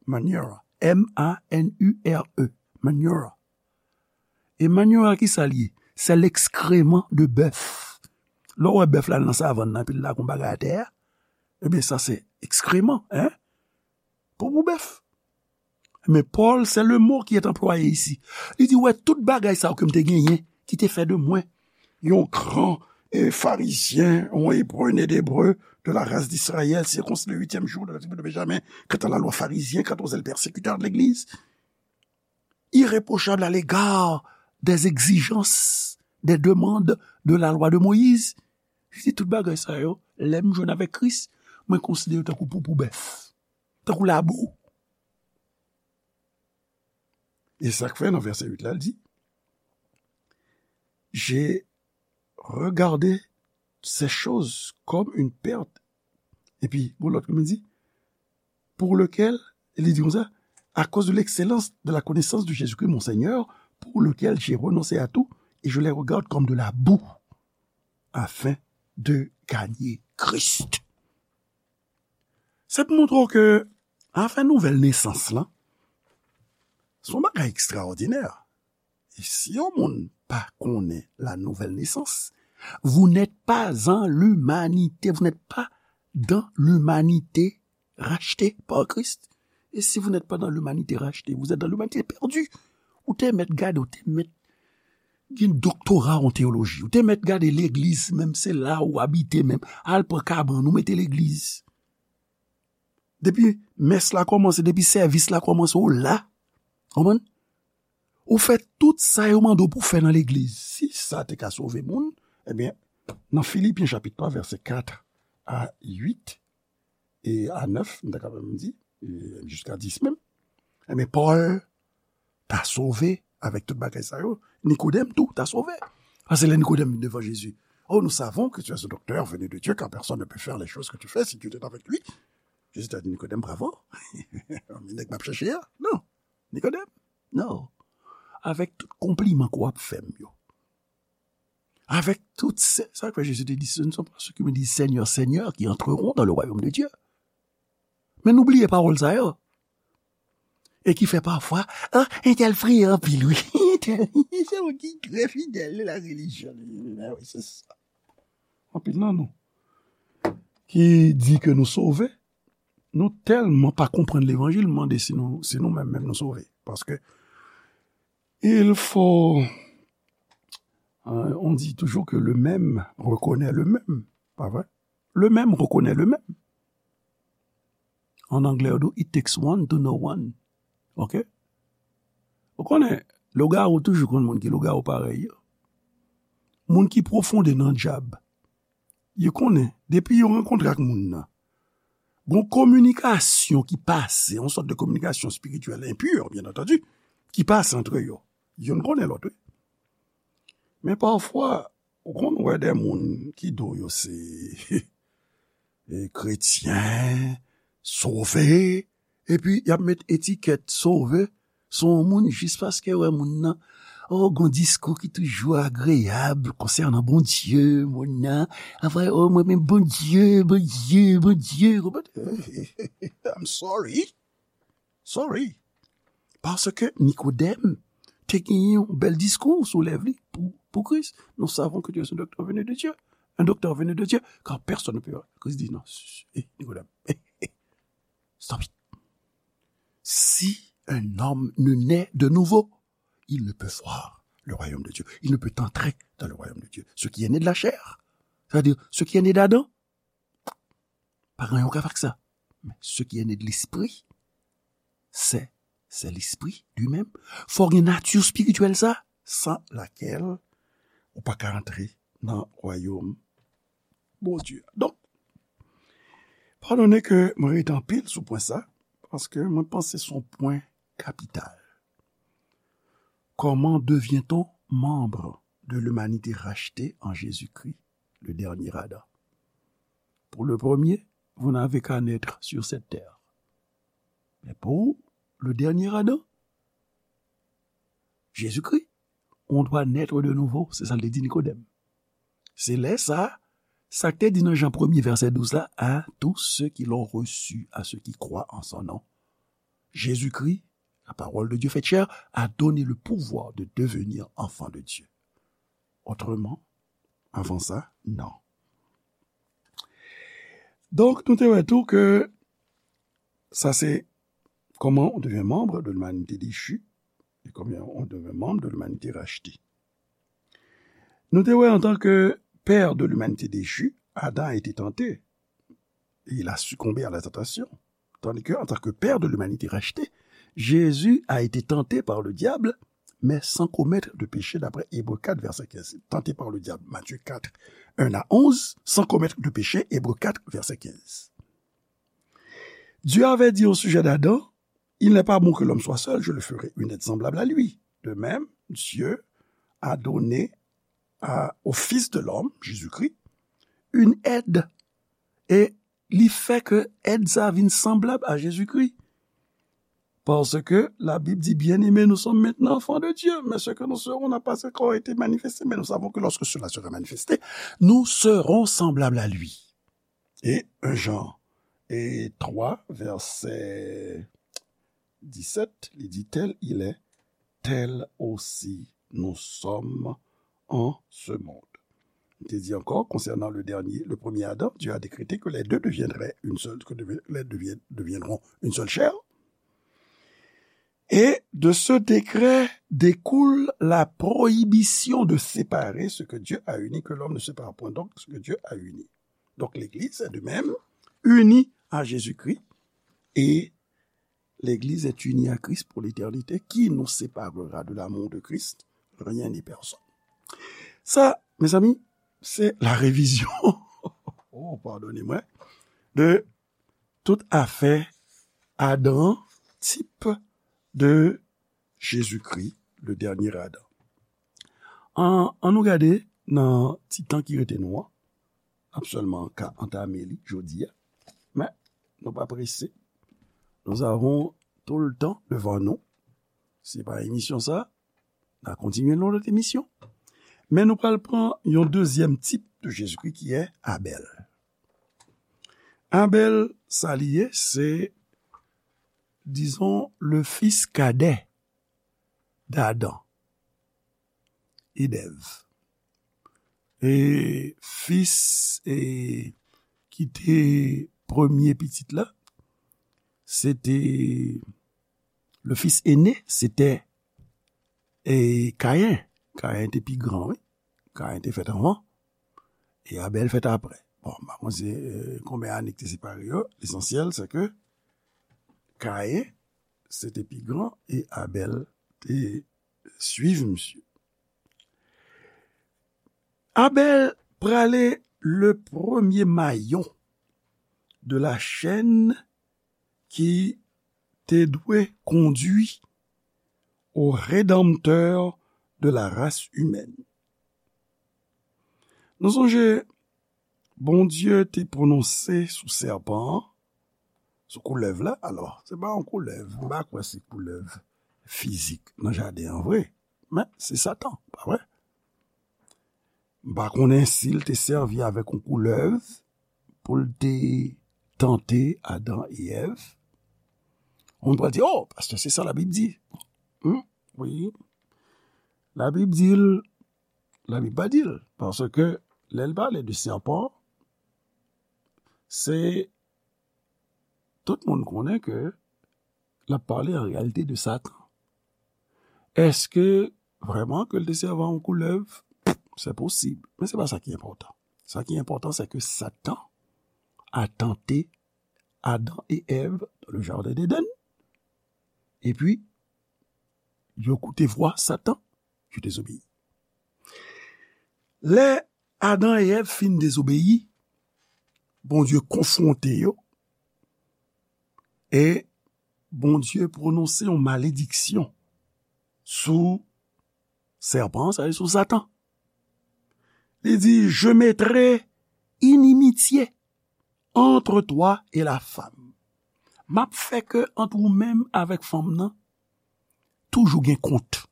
Manure. M A N U R E. Manure. E manure, ki sa l ye? Se l'excrément de bœuf. Lè w wè bèf la nan savann nan, epi l lage yon bagay atè a, ebyen, sa se ekskreman, hein? Poupou bèf. Men Pòl, se le mo ki est anplwaye isi. Li di, wè, tout bagay sa yo ke m te genyen, ki te fè de mwen yon gran, eh, Farizyen, yon Ebre, né d'Ebre, de la race d'Israël, circoncis le huitième jour de la tribu de Benjamin, quant à la loi pharisien, quant aux zèles persécuteurs de l'Église, irréprochable à l'égard des exigences, des demandes de la loi de Moïse. Li di tout bagay sa yo, lè m jwenn avèk Kris, mwen konsidere yo tankou poupou bèf, tankou labou. E sa k fè nan vèsè uit la, l di, j'ai regardé ces choses comme une perte. Epi, gon lòt ki di, pour lequel, li di konsa, à cause de l'excellence de la connaissance de Jésus-Christ, mon Seigneur, pour lequel j'ai renoncé à tout, et je les regarde comme de la boue, afin de gagner Christ. Sa pou montre w ke afè nouvèl nesans lan, se yon bagay ekstraòdinè. E si yon moun pa konnen la nouvèl nesans, vous n'êtes pas en l'humanité, vous n'êtes pas dans l'humanité racheté par Christ. Et si vous n'êtes pas dans l'humanité rachetée, vous êtes dans l'humanité perdue. Ou te mèt gade, ou te mèt gen doktora an teyoloji, ou te mèt gade legliz, menm se la ou abite menm. Al pran kabann, ou mete legliz. Depi mès la kòmanse, depi sèvis la kòmanse, ou la. Konprann? Ou fè tout sa yo mande w pou fè nan legliz. Si sa te ka sove moun, ebyen, nan Filipyen chapit twa, vèsè kat a uit e a nèf, m ta ka menm di, e jiska dis menm, ebyen, Pòl ta sove avèk tout bagay sa yo. Nikodèm tou ta sove. Paske lè Nikodèm vin devan Jezi, oh, nous savons que tu es un docteur venu de Dieu, car personne ne peut faire les choses que tu fais si Dieu était avec lui. Jezi ta di Nikodèm, bravo. Men nèg m ap chèche a, non. Nikodèm, non. Avèk tout konpliman ke w ap fè m yo. Avèk tout se, sa k fè Jezi te di, ce ne sont pas ceux qui me disent Seigneur, Seigneur qui entreront dans le royaume de Dieu. Men nou bliye pawòl sa yo. E ki fè pafwa, ah, entèl priye anpil, wi. Entèl, se yon ki trè fidèl de la relijyon. Ah wi, se sa. Anpil nan nou ki di ke nou sove, nou tèlman pa konprann levanjil, m mande si nou, si nou menm, menm nou sove. Paske il faut, euh, on dit toujours que le même reconnaît le même, pa vre? Le même reconnaît le même. An anglè, yo di, it takes one to know one. Ok? Ou konnen, lougawou toujou konn moun ki lougawou parèy yo. Moun ki pwofonde nan djab, yo konnen, depi yo rankontre ak moun nan, gon kominikasyon ki pase, yon sòt de kominikasyon espirityèl enpur, byen antandi, ki pase antre yo. Youn konnen lòt, wi. Men pafwa, ou konn wè de moun ki di w yo se, e, kretyen, sove, epi y ap met etikèt sove sou yon moun jis paske wè moun nan, oh, gon diskou ki toujou agreyab konsènan Bondye, moun nan, ap wè, oh, mwen men Bondye, Bondye, Bondye, konprann? I'm sorry. Sorry. Paske Nikodèm te genyen yon bèl diskou sou lèv li pou, pou Kris. Nous savons que tu es un docteur venu de Dieu. Un docteur venu de Dieu, car personne ne peut. Kris di, non, eh, Nikodèm, eh, eh, stop it. Si un homme ne naît de nouveau, il ne peut voir le royaume de Dieu. Il ne peut entrer dans le royaume de Dieu. Ce qui est né de la chair, c'est-à-dire ce qui est né d'Adam, pa gen anyen w ka fè ak sa. Men ce qui est né de l'esprit, c'est, c'est l'esprit lui-même. Fò w gen nati espirityèl sa, sans laquelle ou pa ka antre nan wayòm Bondye. Donk, padone ke mwen rete anpil sou pwen sa, paske mwen panse se yon pwen kapital. Comment devient-on membre de l'humanité rachetée en Jésus-Christ, le dernier Adam? Pour le premier, vous n'avez qu'à naître sur cette terre. Mais pour le dernier Adam, Jésus-Christ, on doit naître de nouveau. Se sa l te di Nikodèm. Se lè sa, sa k te di nan Jan premye, vèsè douz la, à tous ceux qui l'ont reçu, à ceux qui croient en son nom. Jésus-Christ, la parole de Dieu faite chair, a donné le pouvoir de devenir enfant de Dieu. Autrement, avant ça, non. Donk, nou te wè tou ke sa se comment on devient membre de l'humanité déchue et comment on devient membre de l'humanité rachetée. Nou te wè, en tant que père de l'humanité déchue, Adam a été tenté et il a succombé à la tentation. Tandis que, en tant que père de l'humanité rachetée, Jésus a été tenté par le diable, mais sans commettre de péché, d'après Hébreux quatre, verset quinze. Tenté par le diable, Matthieu quatre, un à onze, sans commettre de péché, Hébreux quatre, verset quinze. Dieu avait dit au sujet d'Adam, il n'est pas bon que l'homme soit seul, je le ferai une aide semblable à lui. De même, Dieu a donné à, au Fils de l'homme, Jésus-Christ, une aide. E li fè ke èd sa vin sanblab a Jezikri. Parce que la Bible dit, bien-aimés, nous sommes maintenant enfants de Dieu, mais ce que nous serons n'a pas encore été manifesté, mais nous savons que lorsque cela sera manifesté, nous serons semblables à lui. Et un Jean et trois, verset dix-sept, li di, tel il est, tel aussi nous sommes en ce monde. Il te dit encore, concernant le dernier, le premier Adam, Dieu a décrété que les deux deviendraient une seule, que devi- les deux devien- deviendront une seule chair. Et de ce décret découle la prohibition de séparer ce que Dieu a uni, que l'homme ne sépare point donc ce que Dieu a uni. Donc l'Église est de même unie à Jésus-Christ et l'Église est unie à Christ pour l'éternité. Qui nous séparera de l'amour de Christ? Rien ni personne. Sa, mezanmi, se la revizyon, oh, padone mwen, de tout afè Adan, tip de Jezikri, le dènye Adan. An, an nou gade nan ti tan ki rete nou an. N ap sèlman ka antame li jodi a. Men, nou pa prese. Nous avons tout le temps devant nous. Se pa emisyon sa, n a kontinye nan lòt emisyon. Men nou pral pran yon dezyèm tip de Jezikri ki è Abèl. Abèl, sa li ye, se, dizon, le fils cadet d'Adam et d'Ève. E fis, e, ki te premye pitit la, se te, le fils aîné, se te, e, Kayen. Kayen te pi gran, wi. Kayen te fèt anvan, e Abèl fèt apre. Bon, m pa konn se, e, konbyen ane ki te separe yo. Lesansyèl, se ke Kayen, se te pi gran, e Abèl te swiv misye. Abèl prale le premye mayon de la chèn ki te dwe kondui au Rédempteur de la race humaine. Nou sonje, Bondye te pwononse sou sèpan an, sou koulèv la. Alò, se pa yon koulèv, m pa kwè se koulèv fizik nan jaden an vre, men se Satan, pa vre? M pa konnen si l te sèvi avèk yon koulèv pou l te tante Adan e Èv. Moun pral di, "Oh, pastè, se sa Labib di." Hmm, wi. Labib di l, Labib pa di l, paske lè l pale de sèpan, se tout moun konnen ke l ap pale an reyalite de Satan. Èske vrèman ke l te sèvi a yon koulèv? Se posib, men se pa sa ki enpòtan. Sa ki enpòtan, se ke Satan a tante Adan e Èv dans le jardin d'Éden. Epi, yo koute vwa Satan, yo dezobeyi. Lè Adan e Èv fin dezobeyi, Bondye konfwonte yo, e Bondye pwononse yon malediksyon sou sèpan, sa vle di sou Satan. Li di, Je mettrai inimitié entre toi et la femme. M ap fè ke ant ou menm avèk fanm nan, toujou gen kont.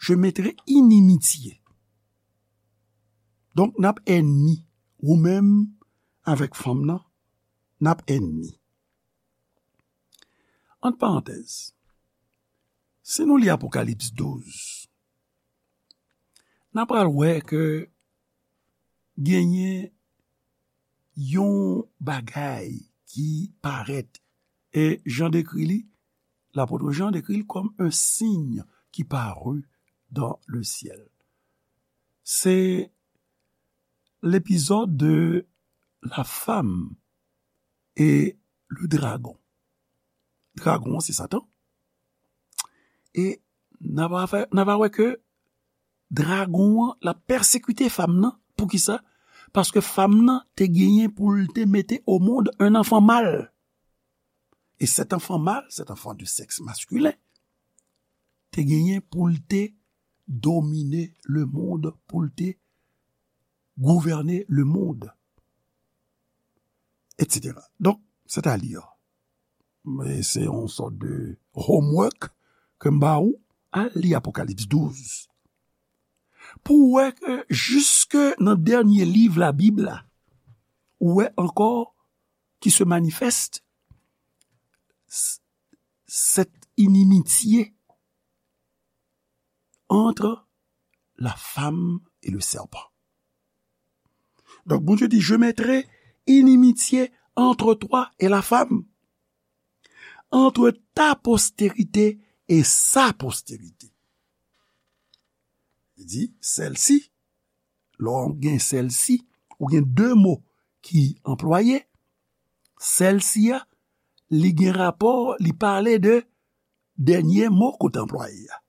Je mettrai inimitié. Donk, n ap ènmi. Ou menm avèk fanm nan, n ap ènmi. Ant parantèz, si nou li Apokalips douz, n a pral wè ke genyen yon bagay ki parèt, e Jan dekri li, lapot Jan dekri l kòm un signe qui parut dans le ciel. Se l'épisode de la femme et le dragon. Dragon an se Satan. E n a va fè, n a va wè ke dragon an, l ap pèsekite fanm nan. Poukisa? Paske fanm nan te genyen pou l te mete au monde un enfant mâle. Et cet enfant mâle, cet enfant de sexe masculin, te genyen pou l te domine le monde, pou l te gouvène le monde, et cetera. Donk, c'est-à-dire, men se yon sòt de homework ke m ba ou, al li Apokalips douz. Pou w wè ke jiske nan dènye liv Labib la, ou wè ankò qui se manifeste, c- cette inimitié entre la femme et le serpent. Donc, Bondye di, Je mettrai inimitié entre toi et la femme, entre ta postérité et sa postérité. Li di, celle-ci, lè w gen celle-ci, ou gen de mo ki anplwaye, celle-ci a, li gen rapò, li pale de dènye mo kote anplwaye a.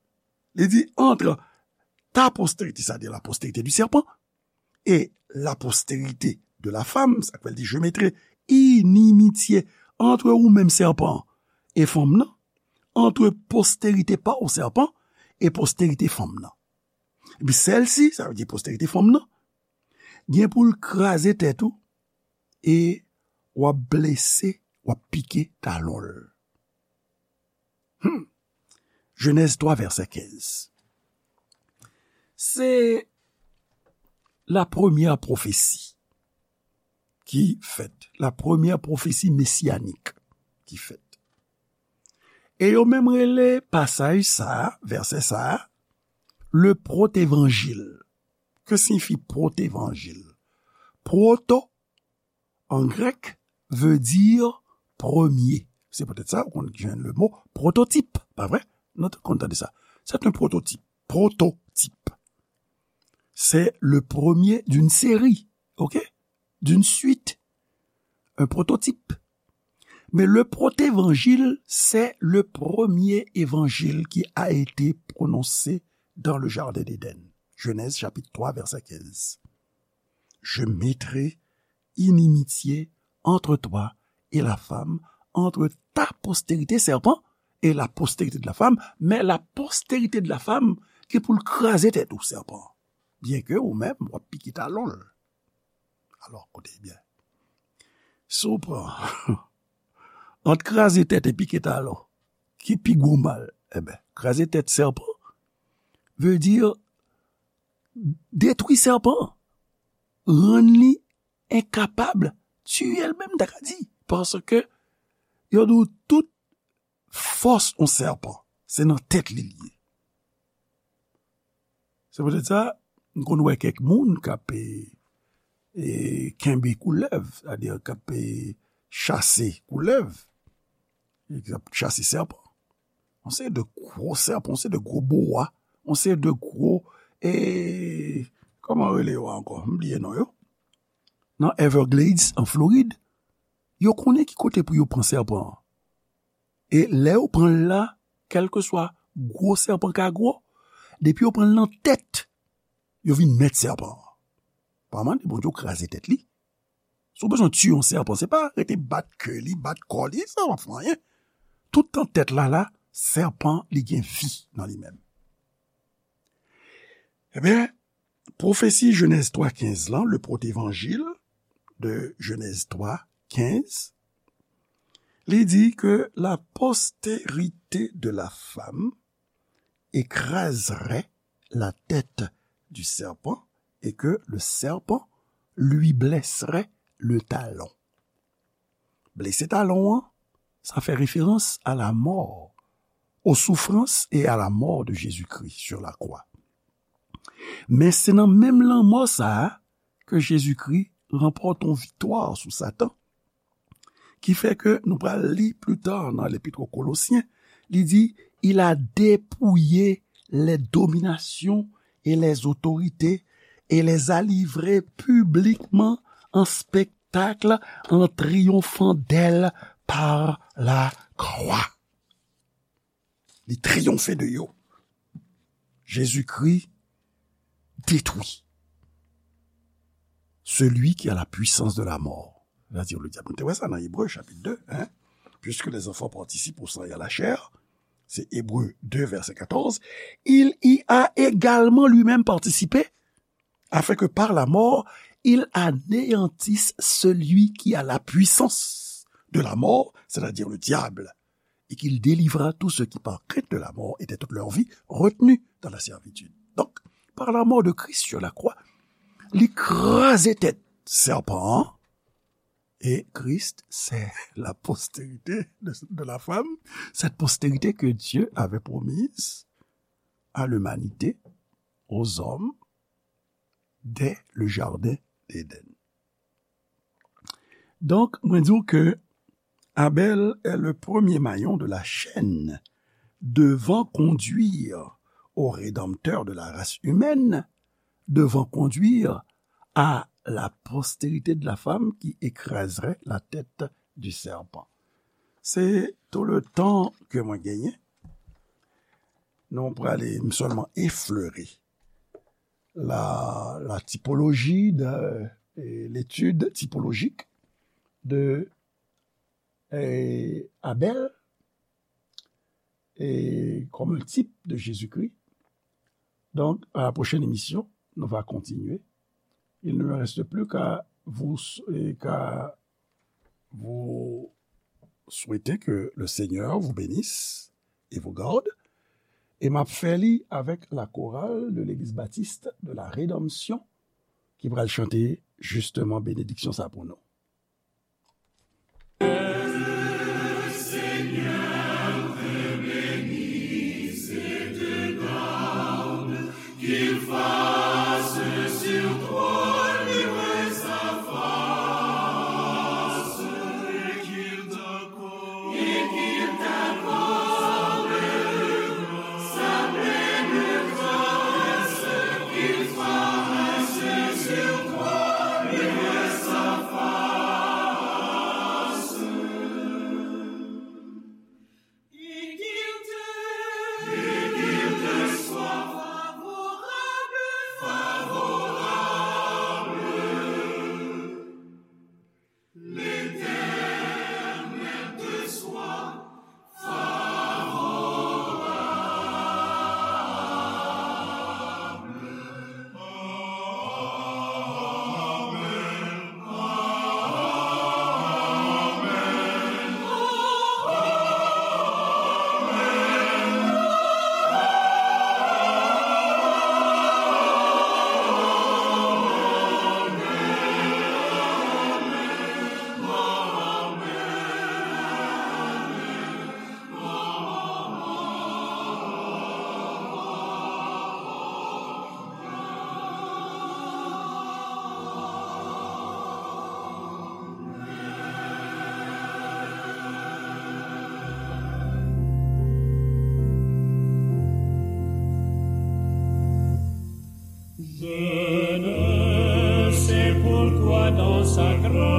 Li di, entre ta postérité, c'est-à-dire la postérité du serpent, et la postérité de la femme, sa k fè l di, Je mettrai inimitié entre ou menm sèpan e fanm nan, entre postérité pa w sèpan e postérité fanm nan. Epi celle-ci, sa vle di postérité fanm nan, gen pou l kraze tèt ou e w ap blese, w ap pike talon l. Hmm. Genèse trois, verset quinze. Se la premyè pwofesi ki fèt, la premyè pwofesi mesiyanik ki fèt. E yo menm rele pasaj sa a, vèsè sa a, le protévangile. Que signifie protévangile? Proto, en grec, veut dire premier. Se poutèt sa, ou konn jwenn le mo prototip, pa vre? Nou te konn tande sa. C'est un prototype. Prototype. C'est le premier d'une série, ok? D'une suite. Un prototype. Mais le protévangile, c'est le premier évangile qui a été prononcé dans le jardin d'Éden. Genèse chapitre trois, verset quinze. Je mettrai inimitié entre toi et la femme, entre ta postérité, serpent, et la postérité de la femme, mais la postérité de la femme ki pou l kraze tèt ou, sèpan. Byenke ou menm, w ap pike talon l. Alò, koute byen. Si w pran ant kraze tèt e pike talon, ki pi gwo mal? Eben, kraze tèt sèpan vle di detwi sèpan, rann li enkapab, tiye l menm, ta ka di. Paske yo di w tout fòs yon sèpan, se nan tèt li l ye. Se poutèt sa, m konn wè kèk moun k ap, e, e, kenbe koulèv, sètadi k ap, e, chase koulèv, k ap chase sèpan. Yon seri de gwo sèpan, yon seri de gwo boa, yon seri de gwo, e, kòman rele yo ankò? M bliye non yo. Nan Everglades, an Florid, yo konnen ki kote pou yo pran sèpan an. E lè yo pran l la, kèlkeswa gwo sèpan ka gwo, depi yo pran l nan tèt, yo vin mèt sèpan an. Pa mande Bondye w kraze tèt li. Si w bezwen tiye yon sèpan, se pa rete bat ke li, bat kò li, sa p ap fè anyen. Toutan tèt la la, sèpan, li gen vi nan li menm. Ebyen, pwofesi Jenèz twa kenz lan, le protévangile de Genèse trois quinze, li di ke la postérité de la femme écraserait la tête du serpent et que le serpent lui blesserait le talon. Blese talon an, sa fè referans a la mort, aux souffrances et à la mort de Jésus-Christ sur la croix. Men se nan menm lanmò sa a ke Jezikri ranpòte yon viktwa sou Satan, ki fè ke nou pral li pli ta nan Lepit o Kolosyen, li di, il a dépouillé les dominations et les autorités et les a livrées publiquement en spectacle en triomphant d'elles par la croix. Li triyonfe de yo. Jésus-Christ détruit celui qui a la puissance de la mort, c'est-à-dire le diable. Nou te wè sa nan Ebre, chapit de, hein? Puisque les enfants participent au sang et à la chair, c'est Hébreux deux, verset quatorze, il y a également lui-même participé, afin que par la mort, il anéantisse celui qui a la puissance de la mort, c'est-à-dire le diable, et qu'il délivra tous ceux qui, par crainte de la mort, étaient toute leur vie retenus dans la servitude. Donc, par la mort de Christ sur la croix, li kraze tèt sèpan an, et Christ, c'est la postérité de, de la femme, cette postérité que Dieu avait promise à l'humanité, aux hommes, dès le jardin d'Éden. Donk, mwen di w ke Abel est le premier maillon de la chaîne devant conduire au Rédempteur de la race humaine, devant conduire à la postérité de la femme qui écraserait la tête du serpent. Se tout le tan ke mwen genyen. Nou prale sèlman eflere la, la typologie de, et l'étude typologique de, eh, Abel et comme un type de Jésus-Christ. Donc, à la prochaine émission, nous va continuer. Il ne me reste plus qu'à vous, eh, qu'à vous souhaiter que le Seigneur vous bénisse et vous garde. E m ap fè li avèk la chorale de l'Église Baptiste de la Rédemption ki pral chante justement bénédiction sa pou nou. Je ne sais pourquoi dans sa grande